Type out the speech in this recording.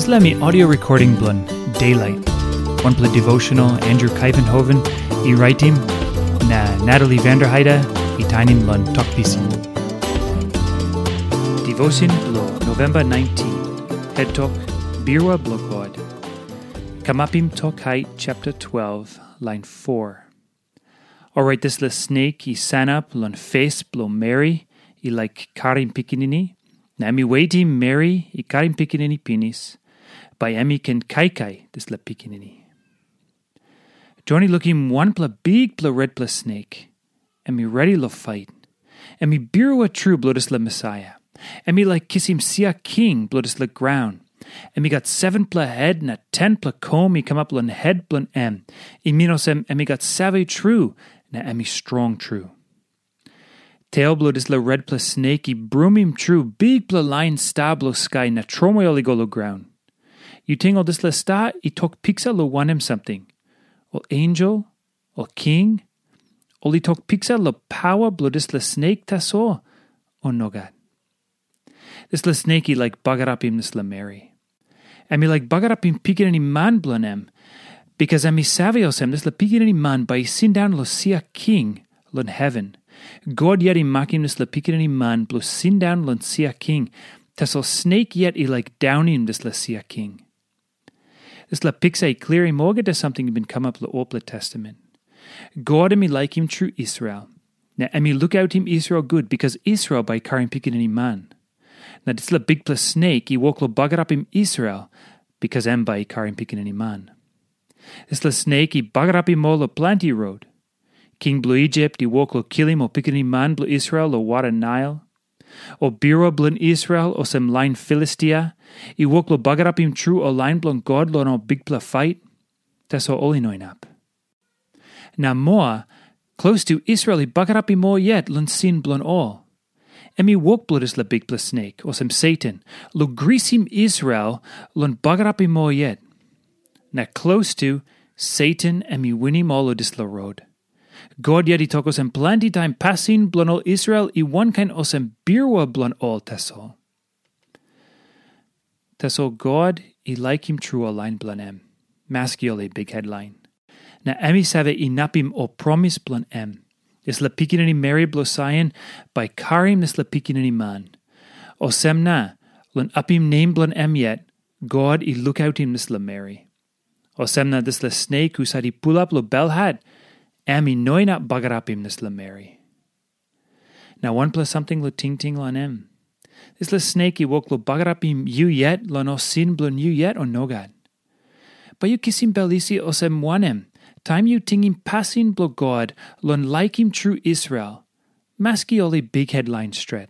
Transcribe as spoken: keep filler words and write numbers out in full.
Dispela mi audio recording bilong Daylight. Wanpela devotional Andrew Kaivenhoven i raitim, na Natalie Vanderheide i tainim long Tok Pisin. Devotion bilong November nineteen. Head Tok, Birua bilong God. Kamapim Tok Hait chapter twelve, line four. Orait dispela snek i sanap long fes bilong meri i laik karim pikinini, na em i wetim meri i karim pikinini pinis, bai em i ken kaikai dispela pikinini. Jon i lukim wanpela bikpela retpela snek, em i redi long fait. Em i birua tru bilong dispela Mesaia. Em i laik kisim sia king bilong dispela graun. Em i gat sevenpela het na tenpela kom i kamap long het bilong em. I min olsem em i gat save tru, na em i strong tru. Tel bilong dispela retpela snek i brumim tru bikpela lain sta bilong skai na tromoi ol i go long graun. Yu ting ol dispela sta i tok piksa long wanem samting? Ol ensel, ol king, ol i tok piksa long paua bilong dispela snek tasol, o nogat? Dispela snek i laik bagarapim dispela meri. Em i laik bagarapim pikinini man bilong em, bikas em i save olsem dispela pikinini man bai i sindaun long sia king long heven. God yet i makim dispela pikinini man bilong sindaun long sia king, tasol snek yet i laik daunim dispela sia king. Dispela piksa i klirim olgeta samting i bin kamap long olpela testament. God em i laikim tru Israel, na em i lukautim Israel gut bikas Israel bai i karim pikinini man. Na dispela bikpela snek i wok long bagarapim Israel, bikas em bai i karim pikinini man. Dispela snek i bagarapim ol long planti rot. King bilong Isip i wok long kilim ol pikinini man bilong Israel long wara Nail. Ol birua bilong Israel, olsem lain Filistia, i wok long bagarapim tru ol lain bilong God long ol bikpela fait. Tasol ol i no inap. Na moa, klostu Israel i bagarapim ol yet long sin bilong ol. Em i wok bilong dispela bikpela snek, olsem Satan, long grisim Israel long bagarapim ol yet. Na klostu, Satan em i winim ol long dispela rot. God yet i tok olsem planti taim pasin bilong ol Israel i wankain olsem birua bilong ol tasol. Tasol God i laikim tru ol lain bilong em, maski ol i bikhet lain. Na em i save inapim ol promis bilong em. Dispela pikinini meri bilong Saion bai karim dispela pikinini man. Olsem na, long apim nem bilong em yet, God i lukautim dispela meri. Olsem na dispela snek husat i pulap long belhat, em i no inap bagarapim dispela meri. Na wanpela samting long tingting long em. Dispela snek i wok long bagarapim yu yet long ol sin bilong yu yet, o nogat? Bai yu kisim bel isi olsem wanem, taim yu tingim pasin bilong God long laikim tru Israel, maski ol i bikhet lain stret?